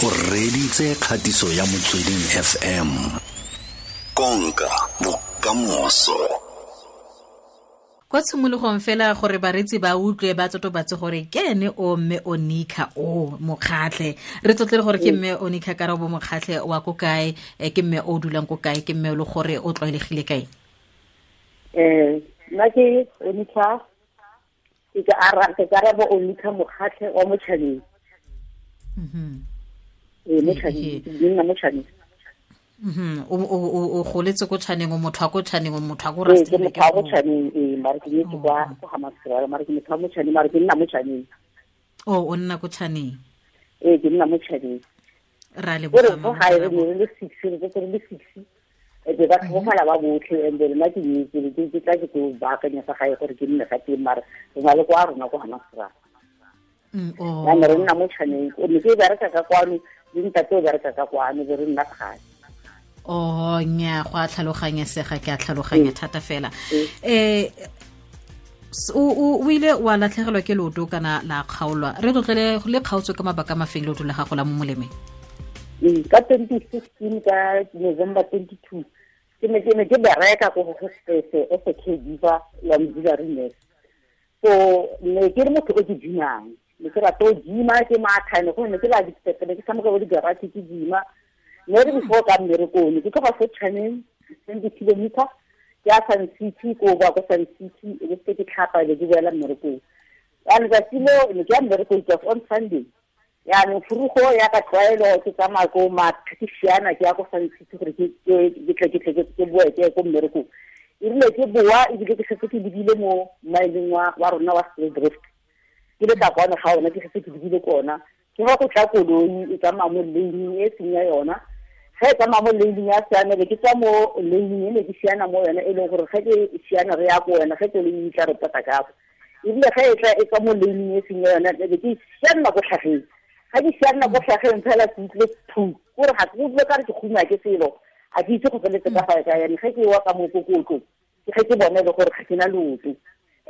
O reditse kgatiso ya Motsweding FM. Konka bokamoso. Kwa tshimologong fela gore baretsi ba utlwe ba totobatse gore ke ene o mme Onica o Mokgatlhe. Re tlotle gore ke mme Onica Karabo Mokgatlhe wa ko kae, ke mme o dulang ko kae, ke mme o le gore o tlwaelegile kae? Nna ke Onica, ke Karabo Onica Mokgatlhe wa Motšhaneng. Motšhaneng, ke nna Motšhaneng. O goletse ko Tšhaneng, o motho wa ko Tšhaneng, o motho wa ko Ee, ke Rustenburg. motho wa ko Tšhaneng, ee, mare ke nyetse kwa Hammanskraal, mare ke motho wa Motšhaneng, mare ke nna Motšhaneng. O nna ko Tšhaneng? Ee, ke nna Motšhaneng. Ra leboga, Gore ko mama gae re Karabo. ne re le six, re tsetse re le six, e be ba tlhokofala ba botlhe, and then nna ke nyetse, ke tla ke tlo baakanya fa gae gore ke nne fa teng, mare re na le kwa rona ko Hammanskraal. Ya ne re nna mo Tšhaneng, o ne ke bereka ka kwano, le ntate o bereka ka kwano, be re nna gae. Oh, nya, go a tlhaloganyesega, ke a tlhaloganya thata fela. O ile wa latlhegelwa ke leoto kana la kgaolwa? Re tlotlele le kgaotswe ka mabaka a mafeng leoto la gago la mo molemeng? Ka 2016, ka November 22, ke ne ke bereka ko go hospice as a caregiver ya auxiliary nurse. So ne ke le motho o ke gymang, ne ke rata o gyma, ke matha, ne go ne ke la di-step, ne ke tshameka bo di-garage ke gyma. Ne re before ka mmerekong, ne ke tloga fo Tšhaneng, 20 kilometer, ke ya Sun City, ko boa ko Sun City, e be se ke tlhapa, e be ke boela mmerekong. Ya letsatsi leo, ne ke ya mmerekong, it was on Sunday. Yaanong furugo ya ka tlwaelo ke tsamaya ko matha, ke siana ke ya ko Sun City gore ke tle ke boe ke ye ko mmerekong. Erile ke boa, ebile ke setse ke lebile mo mmaeleng wa rona wa Styldrift. Ke le ka kwano ga ona, ke setse ke lebile ko ona. Ke ga go tla koloi e tsamaya mo lane e seng ya yona. Ge e tsamaya mo lane ya siamele, ke tswa mo lane e ne ke siana mo yona, e leng gore ge ke siana re ya ko yona, ge koloi e tla re pota ka fa. Ebile ge e tla e tswa mo lane e seng ya yona, e be ke sianna ko tlhageng. Ga ke sianna ko tlhageng fela ke utlwile phu, kore ga ke utlwe ka re ke kgungwa ke selo, a ke itse go feletse ka fa kae. Yaanong ge ke wa ka mokokotlong, ke ge ke bone le gore ga ke na leoto.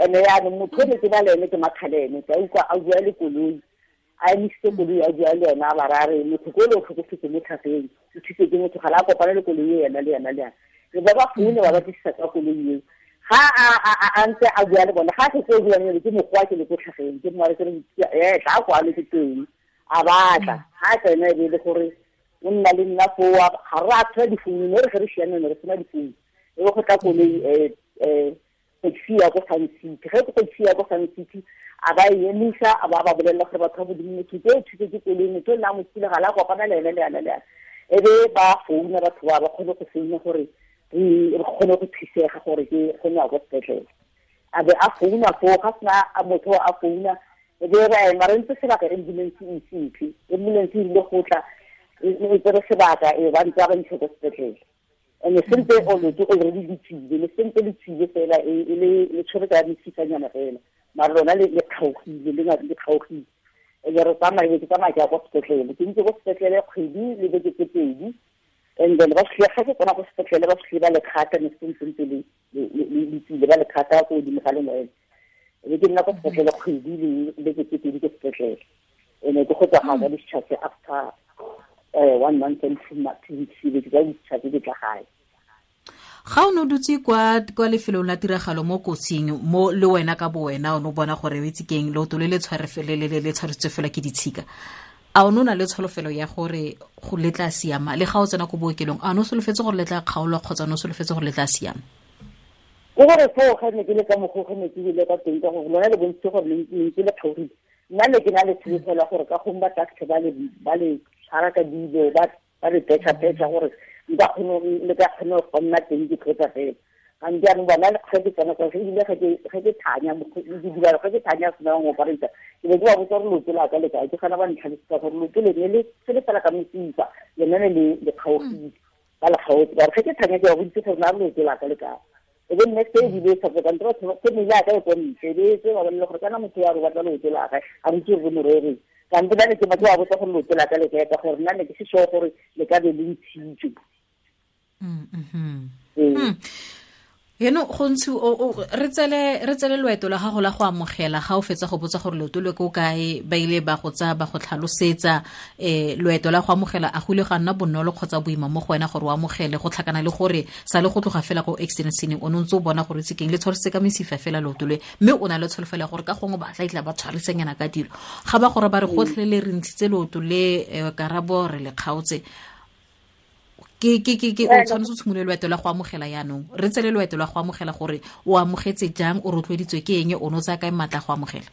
And-e yaanong motho o ne ke na le ene ke Makgalene, ke a utlwa a bua le koloi, a emisitse koloi a bua le yena, a ba raya re motho ko le o tlhokofetse mo tlhageng, o thusitse ke motho, ga la kopana le koloi e yena le yena le yena. Re ba ba foune ba batlisisa ka koloi eo. Ga a ntse a bua le bona, ga a setse o bua le ke mokgwa ke le ko tlhageng, ke mo re ke re, tla kwano ke teng. A batla, ga a tsena e be e le gore o nna le nna foo, ga re a tshwara difounu, mme re ge re siame ne re sena difounu. E be go tla koloi, taxi ya ko Sun City. Ge ke taxi ya ko Sun City, a ba e emisa, a ba ba bolelela gore batho ba modimo, motho ke o thusitse ke koloi, motho o nna a mo thule, ga la kopana le ene le ene le ene. E be ba founa batho ba, ba kgone go founa gore re kgone go thusega gore ke kgone go ya ko sepetlele. A be a founa foo, ga sena a motho a founa, e be re ema re ntse sebaka, ambulance e ise e tle. Ambulance e rile go tla, e tsere sebaka, e ba ntse ba ntshe ko sepetlele. And sentse o lotse already le tswile, le sentse le tswile fela, e le, le tshwere ka mesifanyana fela. Mare lona le kgaogile, le ngata le kgaogile. E be re tsamaya, e be ke tsamaya ke ya kwa sepetlele. Ke ntse ko sepetlele kgwedi le beke tse pedi. And then ba fitlhe, ga ke tsena ko sepetlele, ba fitlhe ba le kgata, ne se ntse ntse le tswile, ba le kgata ko godimo ga lengwele. E be ke nna ko sepetlele kgwedi le beke tse pedi ko sepetlele. E ne ke go tswa ga ka discharge after 1 month and 2 weeks, e be ke tla discharge ke tla gae. Ga o ne o dutse kwa lefelong la tiragalo mo kotsing, mo le wena ka bo wena o ne o bona gore o itse keng, leoto le le tshware fe-, le, le, le, le tshwaretswe fela ke ditshika. A o ne o na le tsholofelo ya gore go le tla siama? Le ga o tsena ko bookelong, a o ne o solofetse gore le tla kgaolwa kgotsa o ne o solofetse gore le tla siama? Ke gore foo ga ne ke le ka mokgwa o ge ne ke bile ka teng, ka gore lona le bontshitse gore le ntse le kgaogile. Nna ne ke na le tsholofelo ya gore ka gongwe ba tla fitlhe ba le tshwara ka dilo, ba le petšha-petšha gore nka kgone ho, le ka kgone go nna teng ke tlotsa fela. Ga nke jaanong bona le ge ke tsena kwa, ebile ge ke thanya, mokgwa, ke dibala, ge ke thanya sena go operate, ke be ke ba botsa gore leoto la ka le kae, ke gana ba ntlhalosetsa gore leoto le ne le se le fela ka mosifa, lone ne le kgaogile, ba le kgaotse. Ba re ge ke thanya ke ba boditse gore na leoto la ka le kae. E be nne se ebile e sa tloka, ntle batho ba, family ya ka e ko ntle, e be e tse ba bolelle gore kana motho ya re batla leoto la gae, a re itse gore mo rereng. Ka ntle ba ne ke ba botsa gore leoto la ka le kae, ka gore nna ne ke se sure gore le ka be le ntshitswe. Eno go ntse re tsele loeto la gago la go amogela ga o fetsa go botsa gore leoto le ko kae, ba ile ba go tsaya ba go tlhalosetsa, loeto la go amogela a go ile ga nna bonolo kgotsa boima mo go wena gore o amogele, go tlhakana le gore sa le go tloga fela ko accident scene o ne ntse o bona gore tsekeng le tshwarisitse ka mesifa fela leoto le, mme o na le tsholofelo ya gore ka gongwe ba tla itla ba tshwarisenyana ka dilo. Ga ba gore ba re gotlhelele re ntshitse leoto le, Karabo re le kgaotse, ke o tshwanetse o tshimolole loeto la go amogela yaanong. Re tsele loeto la go amogela gore o amogetse jang, o rotloeditswe ke eng, o ne o tsaya kae maatla go amogela?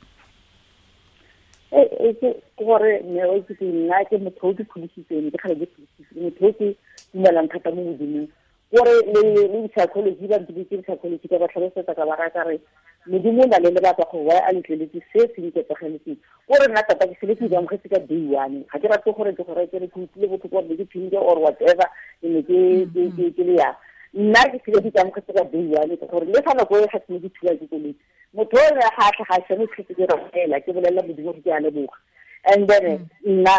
Ke gore mme o itse nna ke motho o ke pholositseng, ke kgale ke pholositseng, motho o ke dumelang thata mo Modimong. Gore le psychology ba ntse psychology ka ba tlhalosetsa ka ba raya ka re Modimo o na le lebaka gore why a letleletse se se nketsageletseng. Gore nna tota ke sele ke ikamogetse ka day one, ga ke rate gore ke gore ke re ke utlwile botlhoko gore ke phinde or whatever, ke ne ke le yang. Nna ke sele ke ikamogetse ka day one, gore le fa nako e ga ke ne ke thula ke koloi, motho o re ga a tlhaga a siame ke ke rapela, ke bolelela Modimo gore ke a leboga. And then nna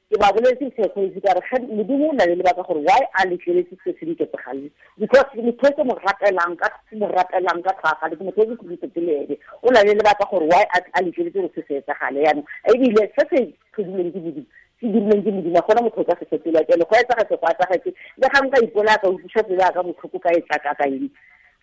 ke ba boletse psychology ka re Modimo o na le lebaka gore why a letleletse se se nketsagaleng, because motho ke mo rapelang ka tlhagale, ke motho o ke khudisetse le ene, o na le lebaka gore why a letleletse gore se se etsagale. Yaanong ebile se se tlhodilweng ke Modimo, se dirilweng ke Modimo, ga gona motho o ka se fetola. Jalo go etsagetse, go etsagetse, le ga nka ipolaya ka utlwisa pelo ya ka botlhoko ka e tlaka ka eng,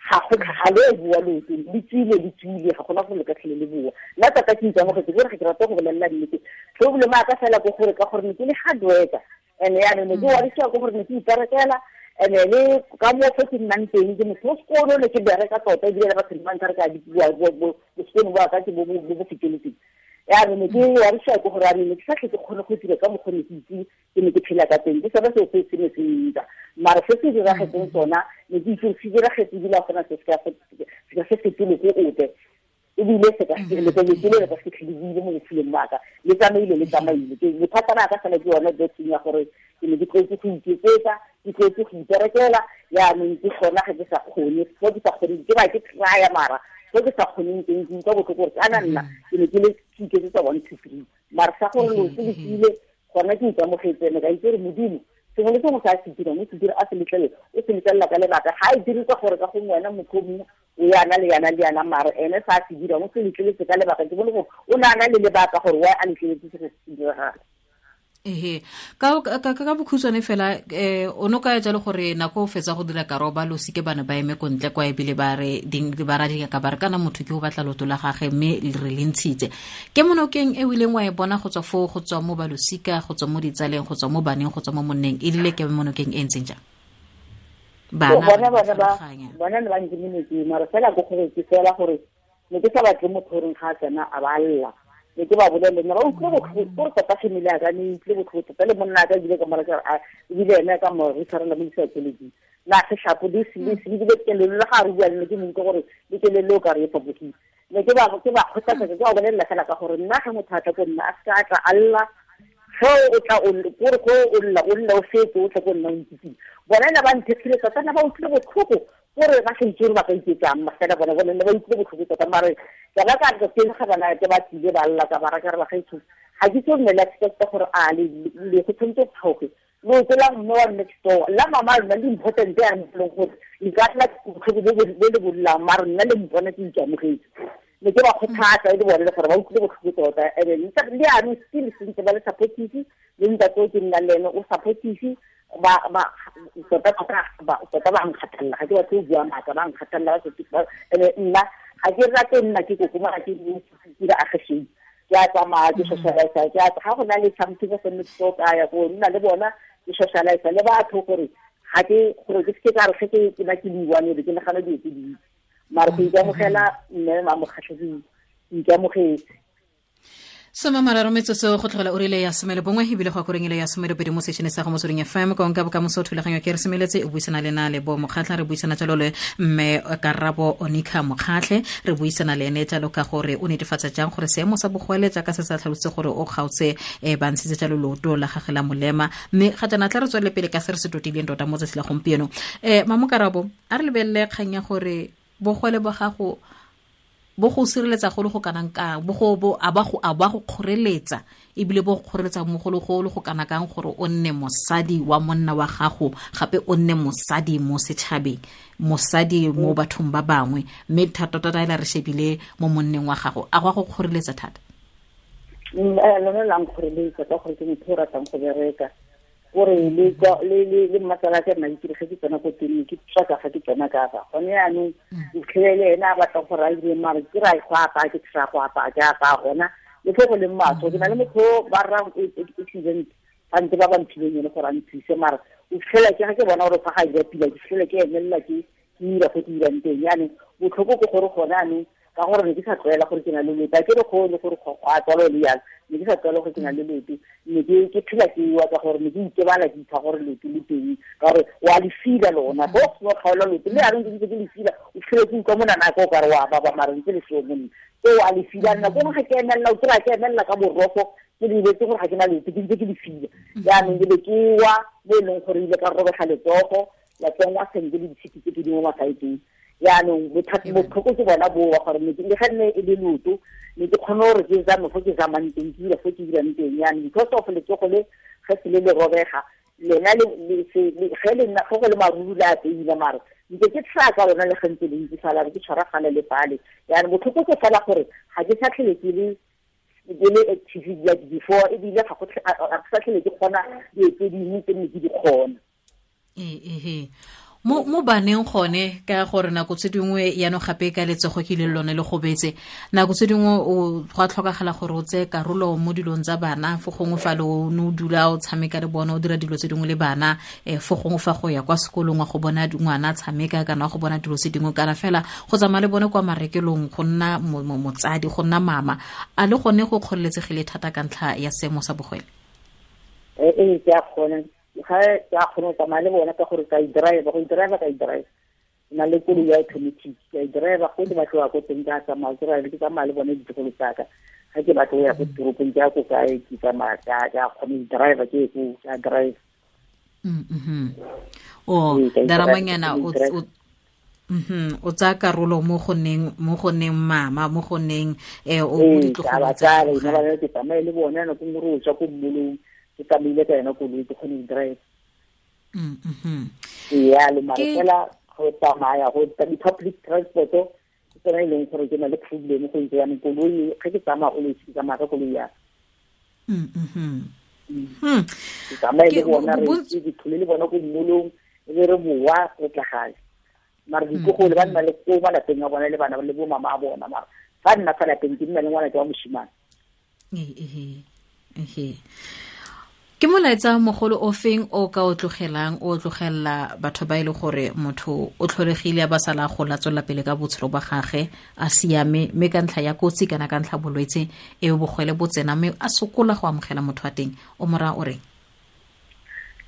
ga go ga le bua loto le tswile, ga gona go le ka tlhele le bua. Nna tota ke ikamogetse, ke gore ga ke rate go bolelela nnete. Problem ya ka fela ke gore ka gore ne ke le hard worker, and yaanong ne ke warisiwa ke gore ne ke iperekela, and le ka moo fo ke nnang teng ke motho o sekolo, ne ke bereka tota, ebile le batho ba ntlha re ka bua bosekolo ba ka ke bo bo feteletseng. Yaanong ne ke warisiwa ke gore yaanong ne ke sa tlhe ke kgone go dira ka mokgwa ne ke itse ke ne ke phela ka teng, ke sone seo se se ne se ntsa. Mara se se diragetseng sona ne ke itse se diragetse ebile ga gona se se ka se fetole ko ope, ebile se ka le le ka se tlhele mo botshelong ba ka, le tsamaile. Ke bothata ba ka fela ke yone betting ya gore ke ne ke tlwaetse go iketsetsa, ke tlwaetse go iperekela, yaanong ke gona ga ke sa kgone, fo ke sa kgoneng ke ba ke trya, mara fo ke sa kgoneng teng ke utlwa botlhoko gore kana nna ke ne ke le ke iketsetsa 1 2 3, mara sa gore loto le tsile gona ke ikamogetse, ne ka itse gore Modimo sengwe le sengwe se a se dirang, o se dira a se letlele, o se letlelela ka lebaka. Ga e dire ka gore ka gongwe wena motho o mongwe o yana le yana le yana, mara ene sa se dirang o se letleletse ka lebaka. Ke bone gore o ne a na le lebaka gore why a letleletse se se diragala. Ehe, ka bokhutshwane fela, o no ka jalo gore nako o fetsa go dira karoba lo sike bana ba eme ko ntle kwa ebile ba re ding ba ra dinga ka ba re kana motho ke o batla loto la gagwe mme re le ntshitse. Ke monokeng e o ileng wa e bona go tswa foo, go tswa mo balosika, go tswa mo ditsaleng, go tswa mo baneng, go tswa mo monneng, e rile ke monokeng e ntseng jang? Bana bona ne ba ntse monokeng, mara fela go gore ke fela gore ne ke sa batle motho goreng ga a tsena a ba lla. Ne ke ba bolelle, ne ba utlwile botlhoko, gore tota family ya ka ne utlwile botlhoko tota, le monna ka ebile ka mora ebile ene ka mo re tshwarela mo di-psychology. Na seshapo le se le kelelo le ga re bua le ne ke mo utlwa gore le kelelo o ka re e fapogile. Ne ke ba kgothatsa, ke ba bolelela fela ka gore nna ga motho a tla ko nna a seka a tla a lla, ge o tla o kore go o lla o lla o fetse o tle ko nna o ntsitsile. Bona ne ba nthekgile tota, ne ba utlwile botlhoko gore ba sa itse gore ba ka iketsang, fela bona ne ba utlwile botlhoko tota. Mare ke ba ka re teng ga bana ke ba tlile ba lla ka ba ra ka re ba gaetsho, ga ke tso nne le expect gore a le go tshwanetse go tlhoge loto la mme wa next door la mama lona le important ya leng gore le ka tla botlhoko bo le bollang, mara nna le mpona ke ikamogetse. Ne ke ba kgothatsa e le bone le gore ba utlwile botlhoko tota, and le yaanong still sentse ba le supportive, le ntate o ke nnang le ene o supportive, ba tota tota ba nkgathalela, ga ke batle go bua maaka, ba nkgathalela ba ene nna ga ke rate nna ke kokoma, ga ke dira agesheng, ke a tsamaya ke socialize, ke a ga go na le something se nne ke ka ya go nna le bona ke socialize le batho gore ga ke gore ke se ka re ge ke na ke buang ke nagana dilo tse dintsi, mara go ikamogela mme Mamokgatlhe ke ikamogetse. 33 metsotso go tlogela ura ya 11 ebile go akoreng ile ya 12 mo sešene sa go Motsweding FM konka bokamoso thulaganyo ke re semeletse o buisana le na le bo Mokgatlha, re buisana jalo le mme Karabo Onica Mokgatlhe, re buisana le ene jalo ka gore o netefatsa jang gore seemo sa bogwele jaaka se sa tlhalositse gore o kgaotse ba ntshitse jalo leoto la gagwe la molema, mme ga jaana tla re tswelele pele ka se re se totileng tota mo tsatsi la gompieno. Mamo Karabo, a re lebelele kgang ya gore bogwele ba gago Bo go sireletsa go le go kanang kang, bo go bo a ba go a ba go kgoreletsa, ebile bo go kgoreletsa mo go le go le go kana kang gore o nne mosadi wa monna wa gago, gape o nne mosadi mo setšhabeng, mosadi mo bathong ba bangwe, mme thata tota ela re shebile mo monneng wa gago, a go go kgoreletsa thata? Lone la nkgoreletsa ka gore ke motho o ratang go bereka. Gore le le le mmatsala ke nna ke ge ke tsena ko teng ke tsaka ga ke tsena ka fa gone yaanong itlhelele ena a batla gore a dire mare ke ra go apaya ke tla go apaya ke apaya gona le fo go leng maswe ke na le motho ba rra accident ba ntse ba ba mphileng ene gore a nthuse mara o fitlhela ke ga ke bona gore fa ga dira pila ke fitlhela ke emelela ke dira fo ke dirang teng. Yaanong botlhoko ke gore gone anong ka gore ne ke sa tlwaela gore ke na le loto, a ke re kgone gore go a tswalo le jalo, ne ke sa tlwaela gore ke na le loto, ne ke phela ke wa ka gore ne ke itebala ke ipha gore loto le teng, ka gore wa le fila lona, go seno kgaola loto le yaanong ke ntse ke le fila, o fitlhele ke utlwa monana ka o kare wa baba mare ntse le seo monna so wa le fila. Nako nngwe ga ke emelela, o kry-a ke emelela ka boroko ke lebetse gore ga ke na loto, ke ntse ke le fila. Jaanong ke be ke wa mo e leng gore ile ka robega letsogo la tsenngwa sentle le ditshipi tse ke di mo masaeteng. Yaanong botlhoko ke bona boa gore le ga nne e le loto ne ke kgone gore ke zame fo ke zamang teng, ke dira fo ke dirang teng. Yaanong because of letsogo le ge se le le robega lona ge le nna go le maruru le a teila mare ntse ke tshaya ka lona le ge ntse le ntse fela ke tshwaragane le fale. Yaanong botlhoko ke fela gore ga ke sa tlhele ke le active like before, ebile ga ke sa tlhele ke kgona dilo tse dingwe tse ne ke di kgona. Mo baneng gone ka gore nako tse dingwe yaanong gape ka letsogo ke le lone le gobetse, nako tse dingwe o go a tlhokagala gore o tseye karolo mo dilong tsa bana, fo gongwe fa le o ne o dula o tshameka le bona, o dira dilo tse dingwe le bana, fo gongwe fa go ya kwa sekolong wa go bona ngwana tshameka kana wa go bona dilo tse dingwe, kana fela go tsamaya le bone kwa marekelong, go nna motsadi, go nna mama, a le gone go kgoreletsegile thata ka ntlha ya seemo sa bogwele? Ee, ke a kgona. Ga ke a kgona go tsamaya le bona ka gore ka e drive, go e drive ka e drive, na le koloi ya automatic ka e drive go ke batlo ya ko teng ka tsamaya ke ra ke tsamaya le bone ditlogolo tsaka, ga ke batlo ya ko toropong ke ya ko kae ke tsamaya ka kgona go drive ke ko ka drive. O daramanyana o tsaya karolo mo go neng mama, mo go neng o mo ditlogolo tsa ka ke tsamaye le bona nako nngwe re o tswa ko mmolong ke tsamaile ka yona koloi ke kgone go drive. Yalo mara fela go tsamaya go di-public transport ke tsona e leng gore ke na le problem go itse yanong koloi ge ke tsamaya always ke tsamaya ka koloi ya ke tsamaye le bona re ke tlhole le bona ko mmolong e be re boa re tla gae, mara ditlogolo ba nna le ko malapeng a bona le bana le bo mama a bona, mara fa nna fa lapeng ke nna le ngwana ke wa moshimane. Ke molaetsa mogolo o feng o ka o tlogelang, o tlogella batho ba ile gore motho o tlholegile a ba sala go latsolla pele ka botshelo ba gagwe a siame, mme ka ntlha ya kotsi kana ka ntlha bolwetse e bogwele bo tsena mme a sokola go amogela motho wa teng, o mora o reng?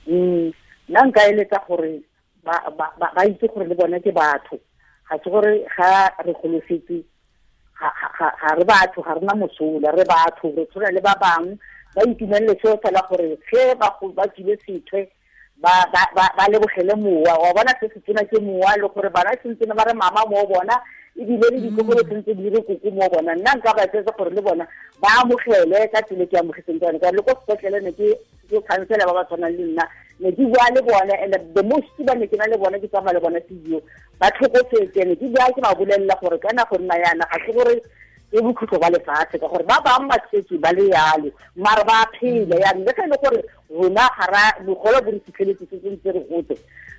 Nna nka eletsa gore ba itse gore le bone ke batho, ga se gore ga re golofetse ga re batho, ga rena mosola, re batho re tshwana le ba bangwe, ba itumelele seo fela gore ge ba tswile sethwe ba lebogele mowa wa bona se se tsena ke mowa, le gore bana sentse ba re mama mo bona ebile le ditlogolo sentse di re koko mo bona. Nna nka ba etsetsa gore le bona ba amogele ka tsela ke amogetseng ka yone, ka le ko sepetlele ne ke khansela ba ba tshwanang le nna, ne ke bua le bone and the most ba ne ke na le bone ke tsamaya le bone physio ba tlhokofetse, ne ke bua ke ba bolelela gore kana go nna yana ga se gore ke bokhutlo ba lefatshe, ka gore ba bangwe ba setse ba le yalo mare ba phela yanong le ge e le gore rona ga ra bogolo bo re fitlheletse se ntse re gotse,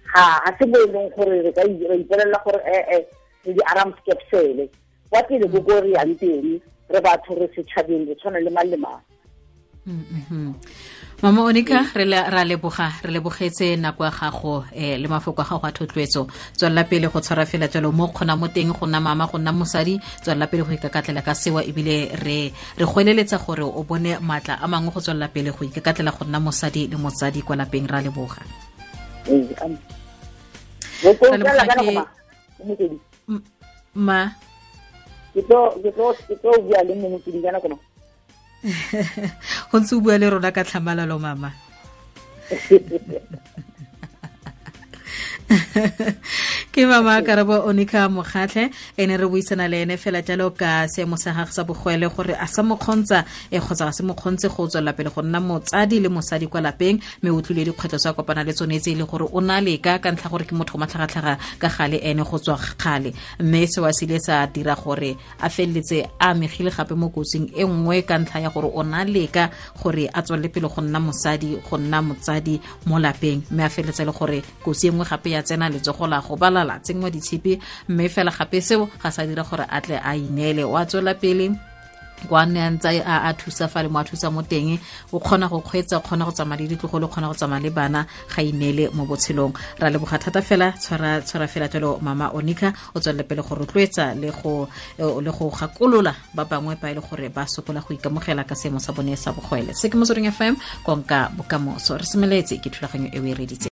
ga se mo e leng gore re ka ipolelela gore re di alarm skepsele kwa pele ko ko re yang teng, re batho re setšhabeng re tshwana le mang le mang. Mama Onica, re leboga, re lebogetse nako ya gago le mafoko a gago a thotloetso. Tswelela pele go tshwara fela jalo mo kgona mo teng go nna mama, go nna mosadi, tswelela pele go ikakatlela ka sewa, ebile re goeleletsa gore o bone maatla a mangwe go tswelela pele go ikakatlela go nna mosadi le motsadi kwa lapeng. Ra leboga. Ma ke tlo bua le mongwe ke ka nako. Go ntse o bua le rona ka tlhamalalo mama. Ke mama Karabo Onica Mokgatlhe, ene re buisana le ene fela jalo ka seemo sa gagwe sa bogwele, gore a sa mo kgontsa kgotsa ga se mo kgontse go tswelela pele go nna motsadi le mosadi kwa lapeng, mme o tlile dikgwetlho tsa kopana le tsone tse e le gore o na leka ka ntlha gore ke motho o matlhagatlhaga ka gale ene go tswa kgale, mme seo a se ile sa dira gore a feleletse a amegile gape mo kotsing e nngwe ka ntlha ya gore o na leka gore a tswelele pele go nna mosadi, go nna motsadi mo lapeng, mme a feleletse le gore kotsi e nngwe gape ya tsena letsogo la go balala tsenngwa ditshipi, mme fela gape seo ga sa dira gore a tle a ineele. O a tswela pele kwa nne a ntse a thusa fa le mo a thusa mo teng, o kgona go kgweetsa, o kgona go tsamaya le ditlogolo, o kgona go tsamaya le bana, ga ineele mo botshelong. Ra leboga thata fela, tshwara fela jalo mama Onica, o tswelele pele go rotloetsa le go gakolola ba bangwe ba e le gore ba sokola go ikamogela ka seemo sa bone sa bogwele. Se ke Motsweding FM, konka bokamoso. Re semeletse ke thulaganyo e o e reditseng.